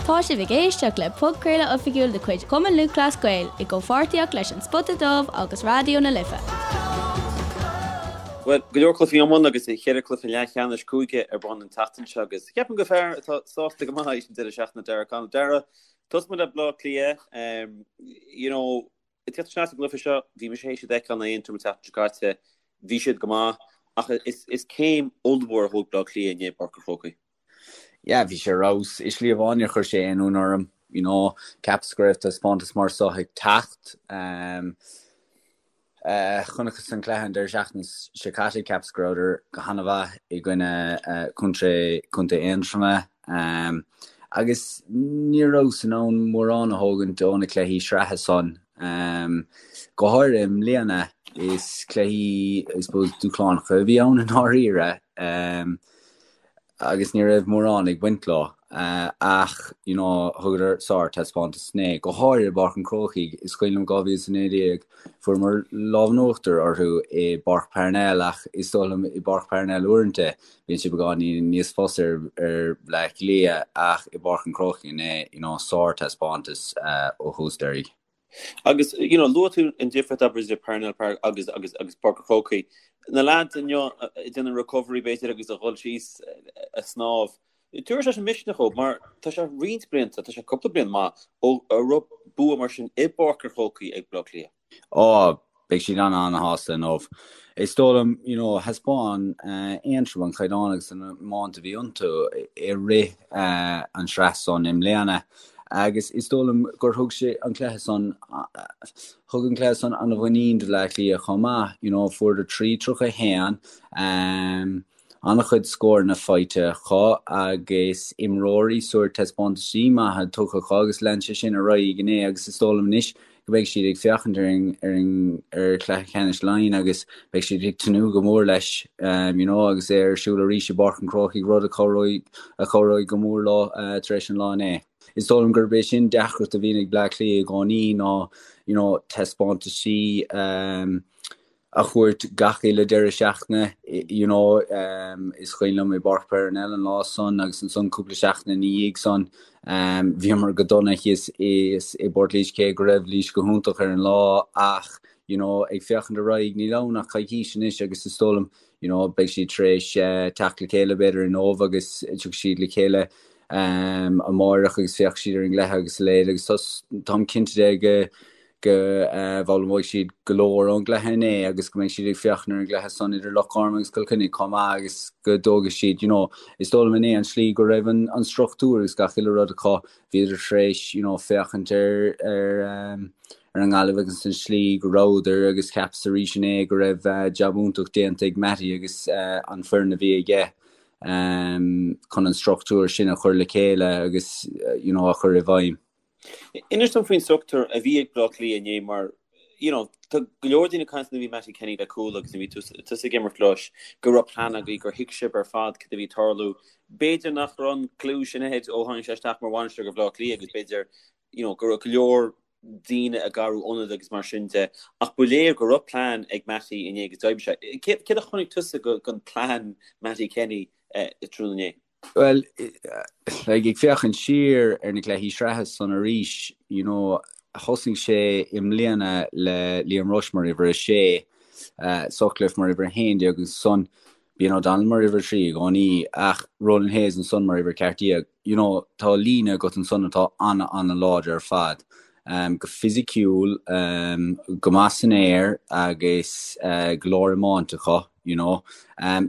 Tá sibh ag éisteacht le podchraoladh oifigiúil de chuid Chumann Lúthchleas Gael i gcomhpháirtíocht leis An Spota Dubh agus Raidió na Life. Bhuel, go leor cluichí iomána agus cheithre cluiche leathcheannais cúige ar bun an tseachtain seo agus ceapaim gur fear atá sásta go maith leis an deireadh seachtaine Darragh O'Connell. Darragh, tosóidh muid le Bleá Cliath. You know, ag teacht isteach sa gcluiche seo, bhí mise théis iad a fheiceáil in Aontroim an tseachtain seo caite, bhí siad go maith ach is céim ollmhór a thóg Bleá Cliath inné i bPáirc an Chrócaigh. Yeah, bhí sé ar fheabhas. I slí amháin níor chuir sé aon ionadh orm, you know, cheapas go raibh taispeántas mar seo ag teacht. Um, uh, chonacthas an cluiche an deireadh seachtaine seo caite, cheapas go rabhadar go han-mhaith i gcoinne uh, contae Contae Aontroma. Um, agus ní rabhas in ann mórán a thógaint ó na cluichí sraithe san. Um, go háirithe i mbliana is cluichí, I suppose, dúshlánacha a bhí ann i ndáiríre. Um, agus ní raibh mórán ag baint leo ach you know thugadar sár-taispeántas inné, go háirithe i bPáirc an Chrócaigh. Is cuimhin liom 2019 fuaireamar lámh in uachtar orthu i bPáirc Parnell ach is dóigh liom i bPáirc Parnell uaireanta bíonn sé beagáinín níos fusa ar ar Bleá Cliath ach i bPáirc an Chrócaigh inné you know sár-taispeántas ó thús deiridh. Agus, you know, luaigh tú an difríocht abair idir Parnell Park agus, agus, agus Páirc an Chrócaigh. Na lads inniu ag déanamh recovery b'fhéidir agus a dhul síos a snámh. Tabharfaidh sé sin misneach dóibh mar tá sé roinnt blianta, tá sé cúpla bliain maith ó a raibh bua mar sin i bPáirc an Chrócaigh ag Bleá Cliath. Ó, Beidh siad an-an-shásta inniu. Is dóigh liom, you know, thaispeáin Aontroim an caighdeán agus an iomáint a bhí iontu i rith an sraith san i mbliana agus is dóigh liom gur thug sé an cluiche san, thug an cluiche san an-mhuinín do Bhleá Cliath chomh maith, you know, fuaireadar 3-31. An-chuid scóranna faighte acu agus imreoirí sórt taispeántaisí maithe tugtha acu agus lean sé sin ar aghaidh inné agus is dóigh liom anois go mbeidh siad ag féachaint ar an ar an ar chluiche ceannais Laighean agus beidh siad ag tnúth go mór leis you know agus é ar siúl arís i bPáirc an Chrócaigh rud a chabhróidh a chabhróidh go mór leo tar éis an lá inné. Is dóigh liom gurb é sin deacracht a bhíonn ag Bleá Cliath i gcónaí ná you know taispeántaisí a thabhairt gach uile deireadh seachtaine, you know, is cuimhin liom i bPáirc Parnell an lá san agus ansan cúpla seachtain ina dhiaidh san, bhíomar go dona thíos i bPort Laoise cé go raibh Laois go hiontach ar an lá ach, you know, ag féachaint ar aghaidh níl ann ach coicís anois agus is dóigh liom, you know, beidh siad tar éis teacht le chéile b'fhéidir inniu agus tiocfaidh siad le chéile amáireach agus féachfaidh siad ar an gcluiche agus a leithéid agus táim cinnte de go go bhfoghlaimeoidh siad go leor ón gcluiche inné agus go mbeidh siad ag féachaint ar an gcluiche san idir Loch Garman agus Cill Chainnigh chomh maith agus go dtógfaidh siad, you know, is dóigh liom inné an tslí go raibh an an struchtúr agus gach uile rud acu, bhíodar tar éis, you know, féachaint ar ar ar an nGaillimh agus an tslí go rabhadar agus cheapas arís inné go raibh jab iontach déanta ag Mattie agus an foireann a bhí aige chun an struchtúr sin a chur le chéile agus, you know, a chur i bhfeidhm. Inis dom faoin struchtúr a bhí ag Bleá Cliath inné mar you know tá go leor daoine ag caint nuair a bhí Mattie Kenny le Cuala agus nuair a bhí tusa ag imirt leis go raibh plean agaibh gur thuig sibh ar fad cad a bhí ag tarlú. B'fhéidir nach raibh an cliú sin ahead ó tháinig sé isteach mar bhainisteoir go Bhleá Cliath agus b'fhéidir you know go raibh go leor daoine ag athrú ionad agus mar sin de ach ba léir go raibh plean ag Mattie inné agus d'oibrigh sé. Céard a chonaic tusa den plean Mattie Kenny tráthnóna inné? Bhuel, like, ag féachaint siar ar na cluichí sraithe san arís, you know, thosaigh sé i mbliana le Liam Rushe mar uimhir 6, Sutcliffe mar uimhir 11 agus ansan bíonn O'Donnell mar uimhir 3 i gcónaí ach Ronan Hayes ansan mar uimhir 14. You know, tá líne agat ansan atá ana-ana-láidir ar fad. Go fisiciúil, go maith san aer agus go leor iomáint acu, you know.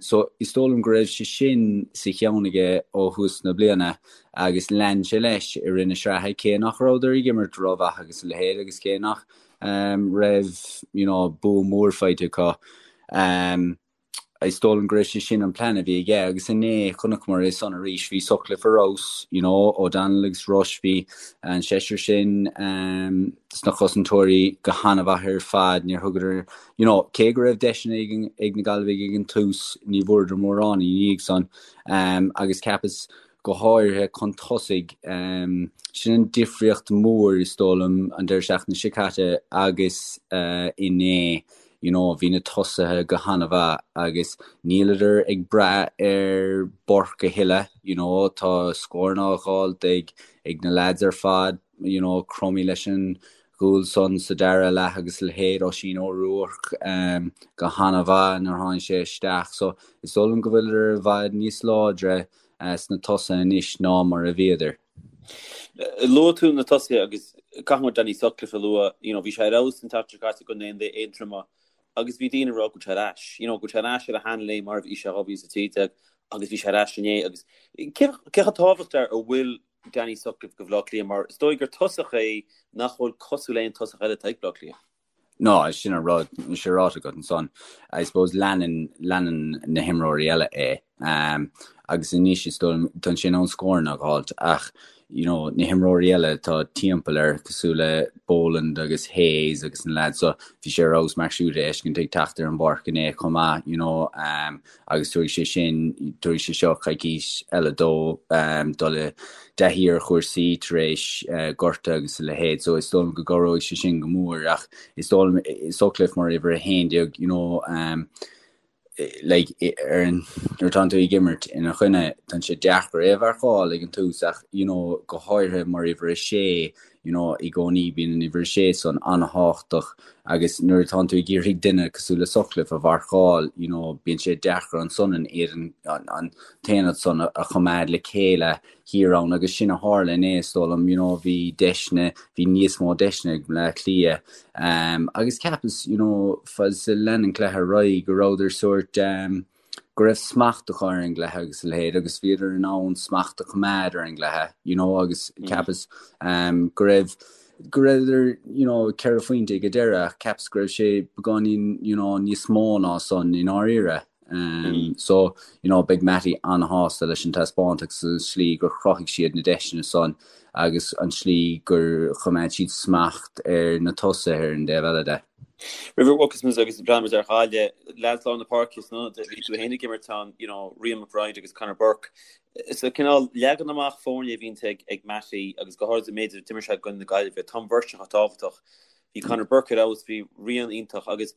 So is dóigh liom go raibh sé sin sa cheann aige ó thús na bliana agus lean sé leis i rith na sraithe cé nach rabhadar ag imirt rómhaith agus a leithéid agus cé nach raibh, you know, bua mór faighte acu. Is dóigh liom go raibh sé sin an plean a bhí aige agus inné chonaiceamar é san arís. Bhí Sutcliffe ar fheabhas, you know, O'Donnell agus Rushe, bhí an seisear sin sna cosantóirí go han-mhaith ar fad. Níor thugadar, you know, cé go raibh deiseanna ag, ag na Gaillimhigh ag an tús, ní bhfuaireadar mórán ina dhiaidh san. Agus cheapas go háirithe chun tosaigh, sin an difríocht mhór is dóigh liom an deireadh seachtaine seo caite agus inné. you know bhí na tosaithe go han-mhaith agus níleadar ag brath ar Burke a thuilleadh, you know tá scóranna á dh'fháilt ag ag na lads ar fad, you know Crummey leis an gcúl san sa dara leath agus a leithéid, Oisín O'Rourke go han-mhaith nuair a tháinig sé isteach so is dóigh liom go bhfuileadar i bhfad níos láidre sna tosaithe anois ná mar a bhíodar. Luaigh tú na tosaithe agus caithfidh muid Danny Sutcliffe a lua, you know bhí sé ar fheabhas an tseachtain seo caite i gcoinne Aontroma agus bhí daoine ag rá go bhfuil sé ar ais, you know go bhfuil sé ar ais ar a sheanléim mar a bhí sé 2013 agus bhí sé ar ais inné agus cé chomh tábhachtach a bhfuil Danny Sutcliffe do Bhaile Átha Cliath mar is dóigh gur tosach é nach bhfuil cosúil le aon tosach eile atá ag Baile Átha Cliath. No, sin an rud, sin ráite agat ansan. I suppose leanann, leanann na himreoirí eile é. Um, agus anois is dóigh liom, tá sé in ann scóranna a dh'fháilt ach, you know, na himreoirí eile atá timpeall air cosúil le Boland agus Hayes agus na lads so, bhí sé ar fheabhas Mark Schutte a fheiscint ag teacht ar an bpáirc inné chomh maith, you know, um, agus tabharfaidh sé sin, tabharfaidh sé seo coicís eile dó dul i dtaithí ar chúrsaí tar éis gorta agus a leithéid so is dóigh liom go gcabhróidh sé sin go mór ach is dóigh liom Sutcliffe mar uimhir 11 you know like ar an nuair atánn tú ag imirt ina choinne tá sé deacair é a mharcáil ag an tús ach you know go háirithe mar uimhir 6 you know, i gcónaí bíonn an uimhir 6 san an-thábhachtach agus nuair atánn tú ag iarraidh duine cosúil le Sutcliffe a mharcáil, you know, bíonn sé deacair ansan an éadan, an t-aonad san a choimeád le chéile thiar ann agus sin a tharla inné is dóigh liom, you know, bhí deiseanna, bhí níos mó deiseanna ag Bleá Cliath um, agus cheapas, you know, fad is a lean an cluiche ar aghaidh go rabhadar sórt um, go raibh smacht acu ar an gcluiche agus a leithéid agus bhíodar in ann smacht a choimeád ar an gcluiche you know agus cheapas um, go raibh go rabhadar you know 4 phointe ag an deireadh ach cheapas go raibh sé beagáinín you know níos mó ná san i ndáiríre. Um, mm. So you know beidh Matty an-shásta leis an taispeántas agus an slí gur chruthaigh siad na deiseanna san agus an slí gur choimeád siad smacht ar na tosaithe ar an dtaobh eile de. Roimh a bhogfas muid agus breathnóidh muid ar Ghaillimh, leaids lár na páirce san ionad, bhí tú féin ag imirt ann, you know, Rian McBride agus Conor Burke. Sa cineál leagan amach foirne a bhíonn ag ag Matty agus go háirithe an méid a d'imir sé i gcoinne na Gaillimhe, tá an bheirt sin chomh tábhachtach. Bhí Conor Burke ar fheabhas, bhí Rian iontach agus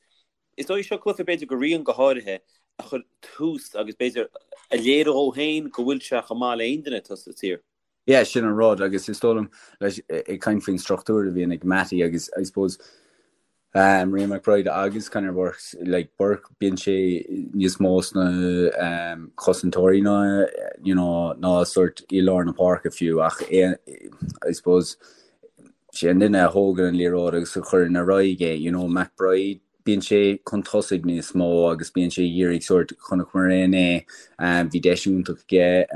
is dóigh seo cluiche b'fhéidir do Rian go háirithe a chuir tús agus b'fhéidir a léirigh dhó féin go bhfuil sé chomh maith le aon duine atá sa tír. Yeah, sin an rud agus is dóigh liom leis ag caint faoin struchtúr a bhíonn ag Matty agus I suppose um, Rian McBride agus Conor Burke, like Burke bíonn sé níos mó sna um, cosantóirí ná you know, ná sort i lár na páirce fiú ach é, I suppose sé an duine a thógann an liathróid agus a chuireann ar aghaidh é, you know, McBride Bíonn sé chun tosaigh níos mó agus bíonn sé ag iarraidh sórt, chonaiceamar é inné, bhí deis iontach aige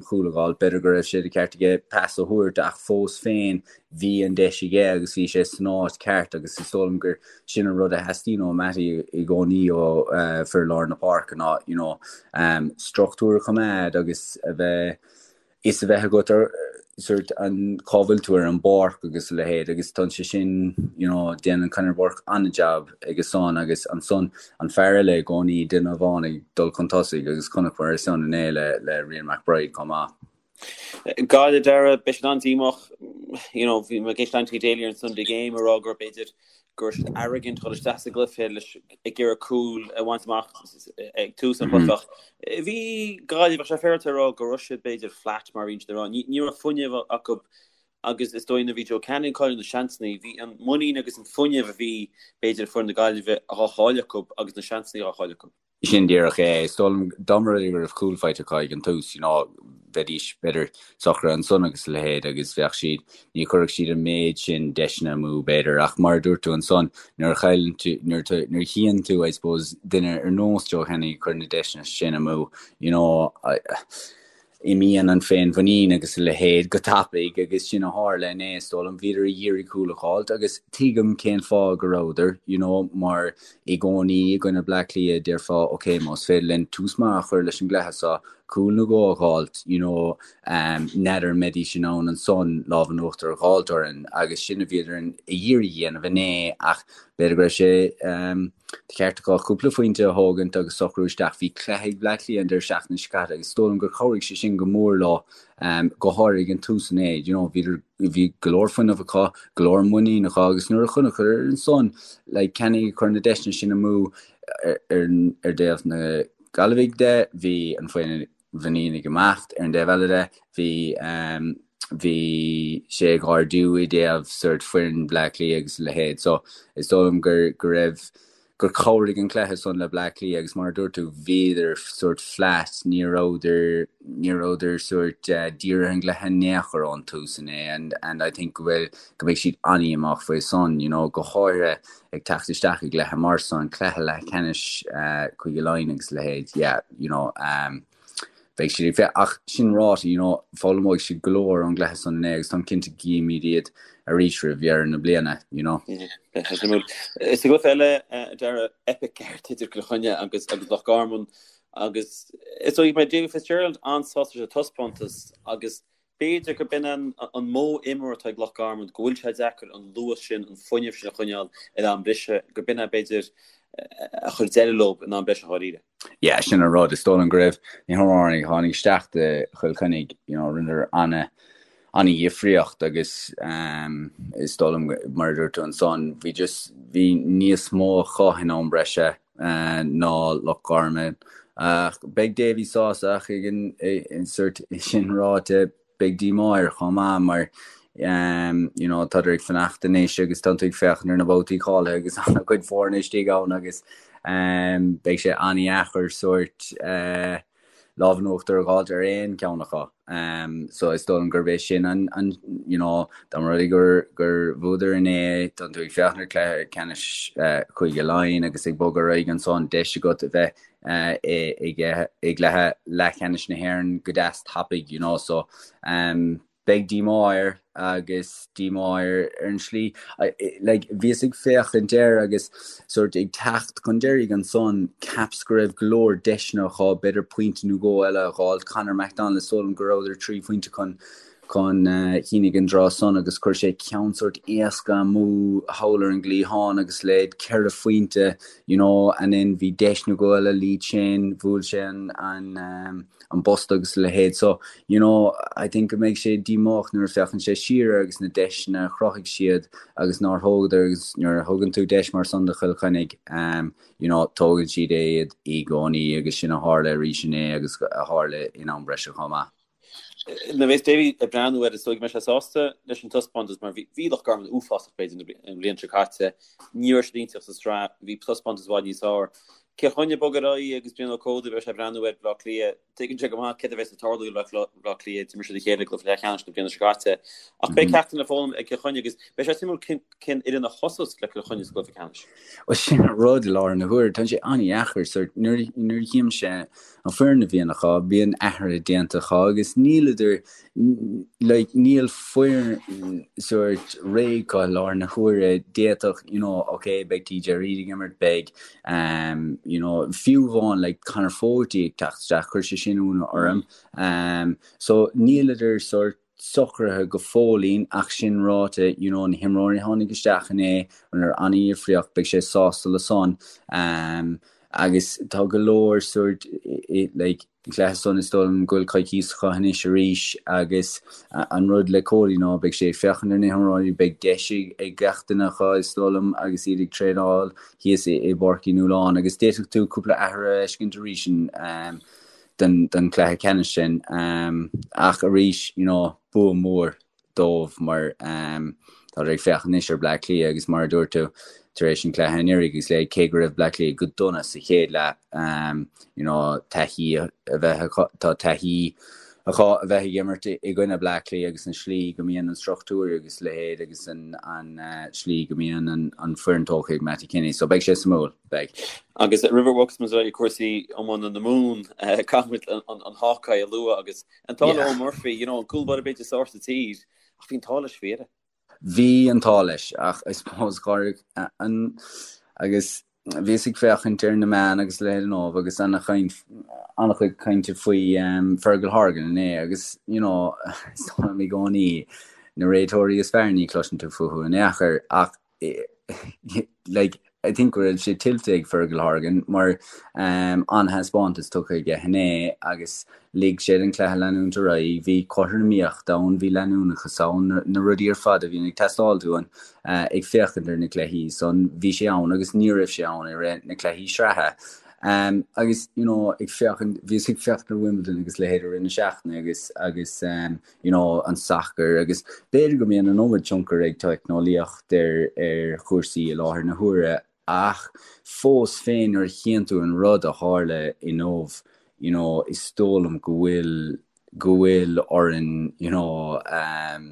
cúl a dh'fháil, b'fhéidir go raibh sé de cheart aige pas a thabhairt ach fós féin bhí an deis aige agus bhí sé san áit ceart agus is dóigh liom gur sin an rud a theastaíonn ó Matty i gcónaí ó fir lár na páirce ná you know struchtúr a choimeád agus a bheith fhios a bheith agat ar sort an cá bhfuil tú ar an bpáirc agus a leithéid agus tá sé sin you know déanann Conor Burke an-jab aige san agus ansan an fear eile i gcónaí duine amháin ag dul chun tosaigh agus chonaiceamar é san inné le le Rian McBride chomh maith. Gaillimh Dara, beidh siad an-díomách, you know, bhí mé ag éisteacht le Anthony Daly ar an Sunday Game ag rá gur b'fhéidir go raibh siad arrogant dhul isteach sa gcluiche leis ag iarraidh cúl a bhaint amach ag tús an chluiche ach bhí Gaillimh bheadh sé féaráilte a rá go raibh siad b'fhéidir flat mar a bhíonn siad ag rá. Ní ní raibh fuinneamh acu agus is dóigh nuair a bhí Joe Canning ag cailleadh na seansanna bhí an muinín agus an fuinneamh a bhí b'fhéidir ag foireann na Gaillimhe á chailleadh acu agus na seansanna á chailleadh acu. Sin díreach é. Is dóigh liom dá mba rud é go raibh cúl faighte acu ag an tús, you know, bheidís b'fhéidir socraithe ansan agus a leithéid agus bheadh siad, ní chuirfeadh siad an méid sin deiseanna amú b'fhéidir ach mar a dúirt tú ansan, nuair a chailleann tú, nuair a, nuair a chíonn tú, I suppose, duine ar nós Joe Canning ag cur na deiseanna sin amú, you know, I, Imíonn an féinmhuinín agus a leithéid go tapaidh agus sin a tharla inné is dóigh liom. Bhíodar ag iarraidh cúl a dh'fháilt agus tuigim cén fáth go rabhadar, you know, mar i gcónaí i gcoinne Bleá Cliath déarfá ok más féidir linn tús maith a chur leis an gcluiche seo. Cúl nó dhó a dh'fháilt, you know, n'fheadar an mbeidís in ann ansan lámh in uachtar a dh'fháilt orainn agus sin a bhíodar ag iarraidh a dhéanamh inné ach b'fhéidir go raibh sé de cheart acu cúpla phointe a thógaint agus socrú isteach. Bhí cluiche ag Bleá Cliath an deireadh seachtaine seo caite agus is dóigh liom gur chabhraigh sé sin go mór leo, go háirithe ag an tús inné, you know, bhíodar, bhí go leor fuinnimh acu, go leor muinín acu agus nuair a chonaiceadar ansan like Kenny ag cur na deiseanna sin amú ar, ar, ar dtaobh na Gaillimhigh de, bhí an mhuinín ag imeacht, ar an dtaobh eile de, bhí bhí sé ag ardú i dtaobh sort foireann Bhleá Cliath agus a leithéid. So is dóigh liom gur go raibh gur chabhraigh an cluiche san le Bleá Cliath agus mar a dúirt tú bhíodar sort flat, ní rabhadar ní rabhadar sort dírithe ar an gcluiche in aon chor ón tús inné and and I think go bhfuil go mbeidh siad an-dhíomách faoi san, you know, go háirithe ag teacht isteach i gcluiche mar san, cluiche leathcheannais Cúige Laighean agus a leithéid, yeah, you know, um, beidh siad ag féach, ach sin ráite, you know, foghlaimeoidh siad go leor ón gcluiche san inné agus táim cinnte go gcífimid iad arís roimh dheireadh na bliana, you know. Sa gcluiche eile, Dara, eipic ceart idir Cill Chainnigh agus agus Loch Garman agus is dóigh go mbeidh Davy Fitzgerald an-sásta leis an taispeántas agus B'fhéidir gurb in an modh imeartha atá ag Loch Garman, go bhfuil sé deacair an luas sin, an fuinneamh sin a choinneáil in am breise, gurb in é b'fhéidir a chuir deireadh leo in am breise dháiríre. Yeah, sin an rud. Is dóigh liom go raibh na himreoirí a tháinig isteach do Chill Chainnigh, you know, rinneadar ana ana-dhifríocht agus um, is dóigh liom mar a dúirt tú ansan, bhí just bhí níos mó acu in am breise ná Loch Garman. Ach beidh Davy sásta ach ag an sort sin ráite beidh díomá air chomh maith mar you know tádar ag fanacht anois agus tá tú ag féachaint ar na babhtaí cáilithe agus an-chuid foirne istigh ann agus beidh sé an-dheacair sort lámh in uachtar a dh'fháilt ar aon cheann acu. So is dóigh liom gurb é sin an, an you know, dá mba rud é gur, gur bhuadar inné, tá tú ag féachaint ar chluiche ceannais Chúige Laighean agus ag bogadh ar aghaidh ansan, deis agat a bheith i, i, i gcluiche leathcheannais na hÉireann go deas tapaidh, you know, so um, Beidh díomá air agus díomá air ar an slí. Like, bhíos ag féachaint air agus sort ag teacht chun deiridh ansan, cheapas go raibh go leor deiseanna acu, b'fhéidir pointe nó dhó eile a dh'fháilt. Conor McDonald, is dóigh liom go rabhadar 3 phointe chun chun cinn ag an dtráth san agus chuir sé ceann sort éasca amú thall ar an gcliathán agus leid ceithre phointe, you know, and then bhí deis nó dhó eile Lee Chin, bhuail sé an, an, um, an posta agus a leithéid. So, you know, I think go mbeidh sé díomách nuair a féachann sé siar air agus na deiseanna a chruthaigh siad agus nár thógadar agus nuair a thugann tú deis mar san do Chill Chainnigh, um, you know, tógann siad é iad i gcónaí agus sin a tharla arís inné agus a tharla in am breise chomh maith. Nuair a bheas Davy ag breathnú air is dóigh go mbeidh sé sásta leis an taispeántas mar bhí Loch Garman uafásach b'fhéidir an bhliain seo caite. Ní raibh siad iontach sa tsraith, bhí taispeántas i bhfad níos fearr. Cill Chainnigh ag bogadh ar aghaidh agus Brian Ó Códaigh beidh sé ag breathnú ar Bhaile Átha Cliath. Tuigeann sé go maith céard a bheas ag tarlú le Baile Átha Cliath, d'imir siad a chéile i gcluiche leathcheannais na bliana seo caite. Ach beidh ceachtanna le foghlaim ag Cill Chainnigh agus beidh sé suimiúil cén fhoireann a thosós le Cill Chainnigh sa gcluiche ceannais. Bhuel sin an rud i láthair na huaire, tá sé an-dheacair sort nuair nuair a chímse an foireann a bhíonn acu, bíonn athruithe déanta acu agus níleadar like níl foireann sort réidh acu i láthair na huaire, d'fhéadfadh you know ok beidh TJ Reid ag imirt, beidh um you know fiú amháin like Conor Fogarty ag teacht isteach, chuir sé sin ionadh orm um so níleadar sort socraithe go fóillín ach sin ráite you know na himreoirí a tháinig isteach inné rinneadar an-dhifríocht, beidh sé sásta le san um agus tá go leor sort like An cluiche san is dóigh liom go bhfuil coicís acu anois arís agus an rud le Cody ná beidh sé ag féachaint ar na himreoirí, beidh deis ag gach duine acu is dóigh liom agus iad ag traenáil thíos i bPáirc Uí Nualláin agus d'fhéadfadh tú cúpla athrú a fheiscint arís don chluiche ceannais sin. Ach arís, you know, bua mór. dóibh mar táthar ag féachaint anois ar Bleá Cliath agus mar a dúirt tú tar éis an chluiche anuraidh agus le cé go raibh Bleá Cliath go dona sa chéad leath you know taithí a bheith acu tá taithí acu a bheith ag imirt i gcoinne Bleá Cliath agus an slí go mbíonn an struchtúr agus leithéid agus an an slí go mbíonn an an foireann tógtha ag Mattie Kenny so beidh sé suimiúil beidh. Agus roimh a bhogfas muid ar aghaidh cúrsaí iomána na Mumhan caithfidh muid an an Hawkeye a lua agus An t-ádh le Eoin Murphy, you know, an cúl báire b'fhéidir is fearr sa tír, ach bhí an t-ádh leis faoi dheireadh. Bhí an t-ádh leis, ach I suppose gur an agus. Bhíos ag féachaint ar na meáin agus a leithéid inniu agus an-chaint, an-chuid cainte faoi Fergal Horgan inné agus, you know, is dóigh liom i gcónaí na réiteoirí is fearr ní chloiseann tú fúthu in aon chor ach like, I think go raibh sé tuillte ag Fergal Horgan mar an-thaispeántas tugtha aige inné agus lig sé don chluiche leanúint ar aghaidh. Bhí cothromaíocht ann, bhí leanúnachas ann, na rudaí ar fad a bhíonn ag teastáil uainn ag féachaint ar na cluichí san, bhí sé ann agus ní raibh sé ann i rith na cluichí sraithe. Agus you know ag féachaint, bhíos ag féachaint ar Wimbledon agus leithéid i rith na seachtaine agus agus you know an sacar agus b'fhéidir go mbíonn an iomad tionchar ag teicneolaíocht ar ar chúrsaí i láthair na huaire ach fós féin nuair a chíonn tú an rud a tharla inniu you know is dóigh liom go bhfuil go bhfuil orainn you know um,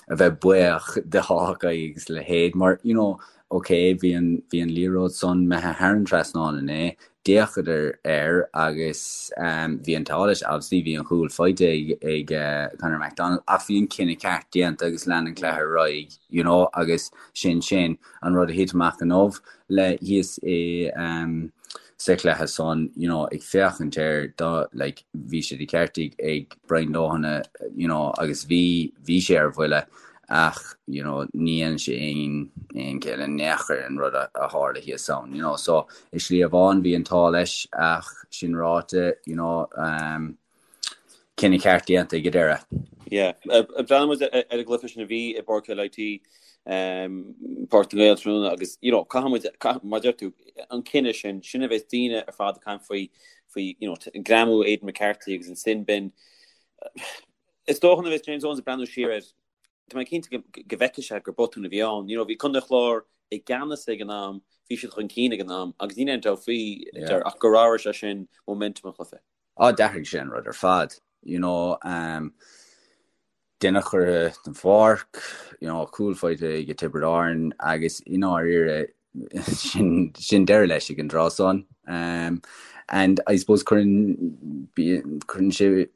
a bheith buíoch de Hawkeye agus a leithéid mar you know ok bhí an bhí an liathróid san imithe thar an trasnán inné, d'fhéachadar air agus bhí an t-ádh leis obviously bhí an chúl faighte ag ag Conor McDonald ach bhí an cinneadh ceart déanta agus lean an cluiche ar aghaidh you know agus sin sin an rud a thit amach inniu le thíos i sa chluiche san you know ag féachaint air do like bhí sé de cheart ag ag Brian Lohan you know agus bhí bhí sé ar bhuille ach you know ní dhéanann sé aon aon chiall in aon chor an rud a a tharla thíos ann you know so i slí amháin bhí an t-ádh leis ach sin ráite you know um, cinneadh ceart déanta ag an deireadh. Yeah, breathnaíonn muid ar an gcluiche sin a bhí i bPáirc LIT um, Páirc na nGael tráthnóna agus you know, caithfidh muid mar deir tú an cinneadh sin sin a bheas daoine ar fad ag caint faoi faoi you know, greamú Aidan McCarthy agus an sin bin Is dócha nuair a bheas James Owens ag breathnú siar air, tá mé cinnte go bhfeicfidh sé gur botún a bhí ann. You know, bhí Contae an Chláir i gceannas ag an am, bhí siad chun cinn ag an am agus níl aon dabht faoi ach gur athraigh sé sin momentum an chluiche. Á, d'athraigh sé an rud ar fad. You know, um, duine curtha den pháirc, you know, cúl faighte ag Tiobraid Árann agus i ndáiríre sin sin deireadh leis ag an dtráth san. Um, and I suppose cuireann cuireann sé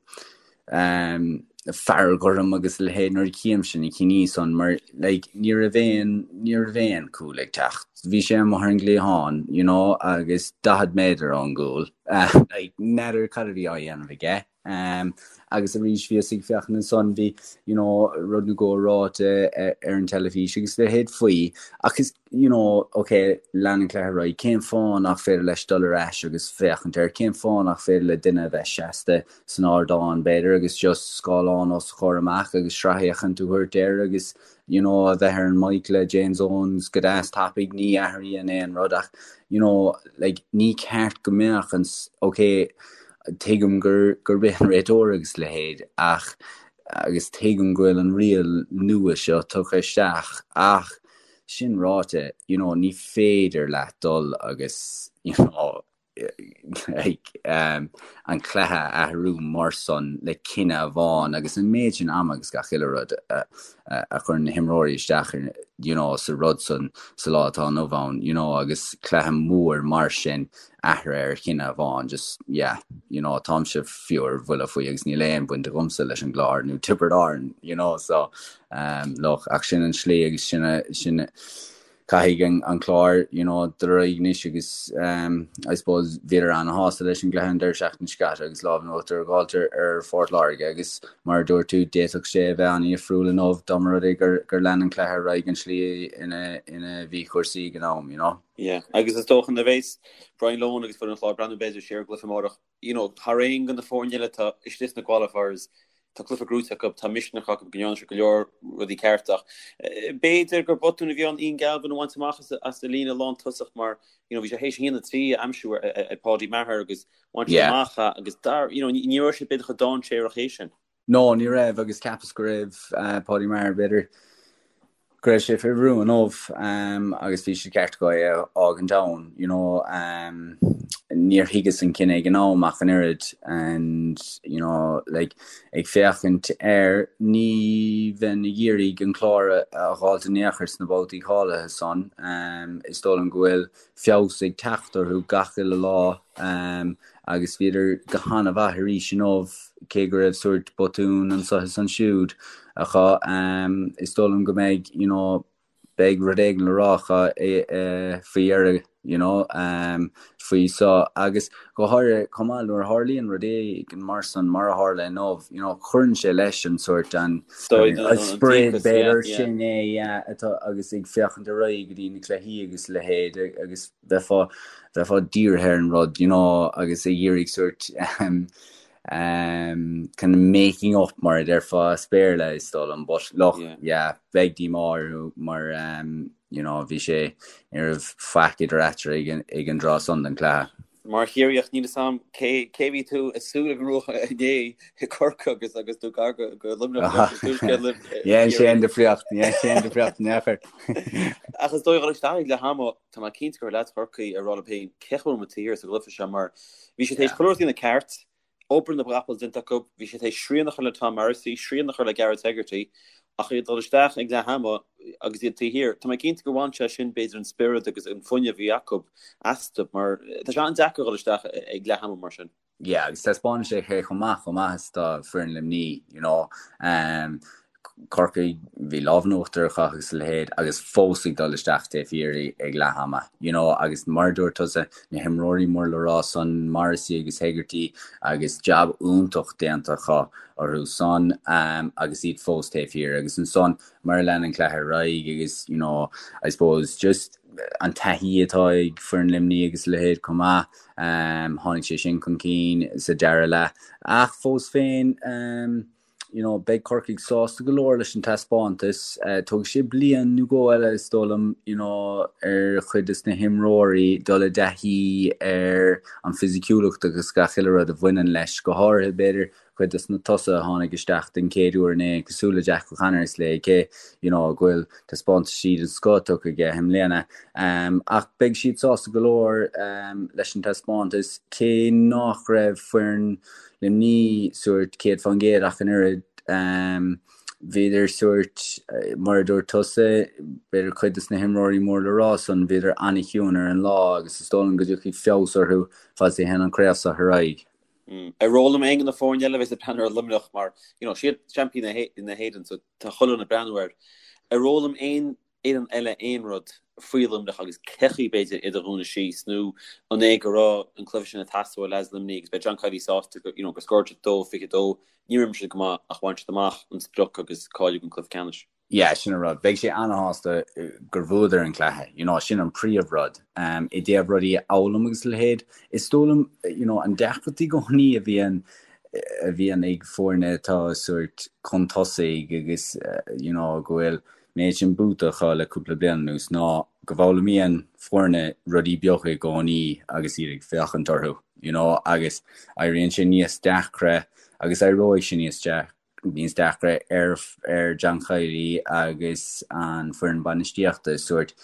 um, fearg orm agus a leithéid nuair a chímse na cinní san mar like, ní raibh aon ní raibh aon cúl ag teacht. Bhí sé amuigh ar an gcliathán, you know, agus 40 méadar ón gcúl. Uh, like, n'fheadar cad a bhí á dhéanamh aige. Um, agus arís bhíos ag féachaint ansan bhí you know, rud nó dhó ráite ar an teilifís agus a leithéid faoi ach is you know, ok, lean an cluiche ar aghaidh, cén fáth nach féidir leis dul ar ais agus féachaint air, cén fáth nach féidir le duine a bheith seasta san ardán b'fhéidir agus just scáileán os a chomhair amach agus sracfhéachaint a thabhairt air agus you know, a bheith ar an mic le James Owens go deas tapaidh, ní athraíonn aon rud ach you know, like, ní ceart go mbeadh an ok, Tuigim gur gurb é an réiteoir agus a leithéid ach agus tuigim go bhfuil an riail nua seo tugtha isteach ach sin ráite, you know, ní féidir leat dul agus, you know, like, um, an cluiche a athrú mar san le cinneadh amháin agus an méid sin ama agus gach uile rud a, a, a chuireann na himreoirí isteach ar, you know, sa rud san sa lá atá inniu ann, you know, agus cluiche mór mar sin athraithe ar chinneadh amháin just yeah you know táimse fiú ar bhuille faoi agus níl aon baint agamsa leis an gClár nó Tiobraid Árann you know so um, look ach sin an slí agus sin sin caithfidh an, an Clár you know dul ar aghaidh anois agus um, I suppose bhíodar an-shásta leis an gcluiche an deireadh seachtaine seo caite agus lámh in uachtar a dh'fháilt ar, ar Phort Láirge agus mar a dúirt tú d'fhéadfadh sé a bheith an-dhifriúil inniu dá mba rud é gur, gur lean an cluiche ar aghaidh an slí ina, ina bhí cúrsaí ag an am you know. Yeah, agus is dócha nuair a bheas Brian Lohan agus foireann an Chláir ag breathnú b'fhéidir siar ar an gcluiche amárach, you know, thar aon de na foirne eile atá istigh sna qualifiers, tá cluiche gnóite acu, tá misneach acu go ndearna siad go leor rudaí ceart ach b'fhéidir gur botún a bhí ann Ian Galvin a bhaint amach as as an líne lántosach mar, you know, bhí sé théis 1-3 a aimsiú ar ar Paudie Maher agus bhain sé Yeah. amach é agus dar, you know, ní ní raibh sé b'fhéidir chomh dainséarach é sin. No, ní raibh agus cheapas go raibh Paudie Maher b'fhéidir go raibh sé faoi bhrú inniu agus bhí sé ceart acu é a fhágaint ann, you know. Níor thuigeas an cinneadh ag an am ach an oiread and, you know, like, ag féachaint air, ní bheinn ag iarraidh an Clár a dh'fháilt in aon chor sna babhtaí cáilithe san. Is dóigh liom go bhfuil feabhas ag teacht orthu gach uile lá agus bhíodar go han-mhaith arís inniu, cé go raibh sórt botún anseo is ansiúd acu. Is dóigh liom go mbeidh, you know, beidh rud éigin le rá acu faoi dheireadh, you know, faoi so agus go háirithe chomh maith nuair a tharlaíonn rud éigin mar san mar a tharla inniu, you know, cuireann sé leis an sórt an spiorad b'fhéidir sin é yeah, atá agus ag féachaint ar aghaidh go dtí na cluichí agus a leithéid agus bheifeá bheifeá dírithe ar an rud, you know, agus ag iarraidh sórt um, um, kind of making up mar a déarfá as Béarla is dóigh liom, but look, yeah, yeah beidh díomá orthu mar um, you know, bhí sé, ní raibh faic idir eatarthu ag an, ag an dtráth san den chluiche. Mar Chiarraíoch, níl 'fhios a'm cé, cé bhí tú ag súil go mbuafadh inné i gCorcaigh agus, agus tú gar go, go Luimneach leis an tuaisceart libh. Ní dhein sé aon difríocht, ní dhein sé aon difríocht in aon chor. Ach is dóigh dhul isteach ag leath ama, tá mé cinnte go raibh leaids Chorcaí ag rá leo féin cén chaoi a bhfuil muid taobh thiar sa gcluiche seo mar bhí siad tar éis chuile rud a dhéanamh ceart, Obair na gcapall déanta acu, bhí siad tar éis srian a chur le Tom Morrissey, srian a chur le Gareth Hegarty, ach iad ag dul isteach ag leath ama agus iad taobh thiar. Tá mé cinnte gur bhain sé sin b'fhéidir an spiorad agus an fuinneamh a bhí acu astu mar tá sé an-deacair a dhul isteach ag leath ama mar sin. Yeah, agus taispeánann sé cé chomh maith, chomh maith is atá foireann Luimnigh, you know. Um, Corcaigh, bhí lámh in uachtar acu agus a leithéid agus fós ag dul isteach taobh thiar ag leath ama, you know, agus mar a dúirt tusa, na himreoirí mór le rá san, Morrissey agus Hegarty agus jab iontach déanta acu orthu san agus iad fós taobh thiar agus ansan mar a lean an cluiche ar aghaidh agus, you know, I suppose just an taithí atá ag foireann Luimnigh agus a leithéid chomh maith, tháinig sé sin chun cinn sa dara leath ach fós féin, you know, beidh Corcaigh sásta go leor leis an taispeántas. Tógfaidh sé bliain nó dhó eile, is dóigh liom, you know, ar chuid des na himreoirí dul i dtaithí ar an fisiciúlacht agus gach uile rud a bhaineann leis, go háirithe, b'fhéidir, cuid des na tosaithe a tháinig isteach den chéad uair inné, cosúil le Jack O'Connor is le cé, you know, go bhfuil taispeántaisí den scoth tugtha aige i mbliana. Ach beidh siad sásta go leor leis an taispeántas, cé nach raibh foireann Luimnigh sórt 100% ach an oiread. Bhíodar sórt, mar a dúirt tusa, b'fhéidir cuid des na himreoirí mór le rá san, bhíodar an-chiúin ar an lá agus is dóigh liom go dtiocfaidh feabhas orthu fad is a théann an chraobh seo ar aghaidh. Ar fhoghlaim aon de na foirne eile a bheas ag breathnú ar Luimneach mar, you know, siad seaimpíní na hÉireann so tá chuile dhuine ag breathnú air. Ar fhoghlaim aon fhoireann eile aon rud faoi Luimneach agus cén chaoi b'fhéidir iad a dhúnadh síos nó an é go raibh an cluiche sin ag teastáil ó leaids Luimnigh agus beidh John Kiely sásta go, you know, gur scóráil siad 2-22, níor imir siad go maith ach bhain siad amach an sprioc agus cáiliú don cluiche ceannais. Yeah, sin an rud. Beidh sé ana-shásta gur bhuadar an cluiche, you know, sin an príomh rud. Um, I dtaobh rudaí a fhoghlaim agus a leithéid, is dóigh liom, you know, an deacracht i gcónaí a bhíonn a bhíonn ag foirne atá sórt chun tosaigh agus, you know, go bhfuil méid sin buaite acu le cúpla bliain anuas ná go bhfoghlaimíonn foirne rudaí beaga i gcónaí agus iad ag féachaint orthu, you know, agus éiríonn sé níos deacra agus éireoidh sé níos níos deacra ar ar John Kiely agus an foireann bainistíochta sórt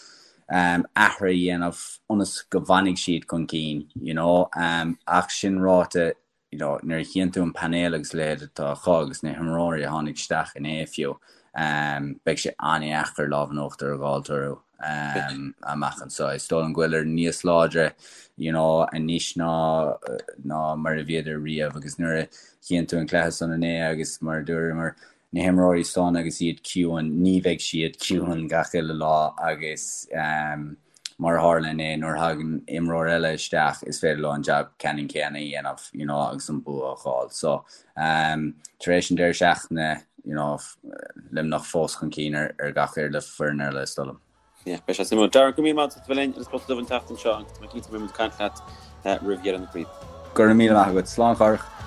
um, athruithe a dhéanamh ionas go bhfanfaidh siad chun cinn, you know, um, ach sin ráite you know, nuair a chíonn tú an painéal agus a leithéid atá acu agus na himreoirí a tháinig isteach inné fiú, um, beidh sé an-dheacair lámh in uachtar a dh'fháilt orthu um, amach anseo. Is dóigh liom go bhfuileadar níos láidre you know, anois ná, ná mar a bhíodar riamh agus nuair a chíonn tú an cluiche san inné agus mar a dúramar na himreoirí san agus iad ciúin, ní bheidh siad ciúin gach uile lá agus um, mar a tharla inné, nuair a thagann imreoir eile isteach is féidir leo an jab ceannann céanna a dhéanamh you know, agus an bua a fháil. So um, tar éis an deireadh seachtaine you know, Luimneach fós chun cinn ar, ar gach uile foireann eile is dóigh liom. Yeah, beidh sé suimiúil. Darren, go raibh míle maith agat as a bheith linn ar an Spota Dubh an tseachtain seo agus tá mé cinnte go mbeidh muid ag caint leat roimh dheireadh na craoibhe. Go raibh míle maith agat. Slán a Chárthach.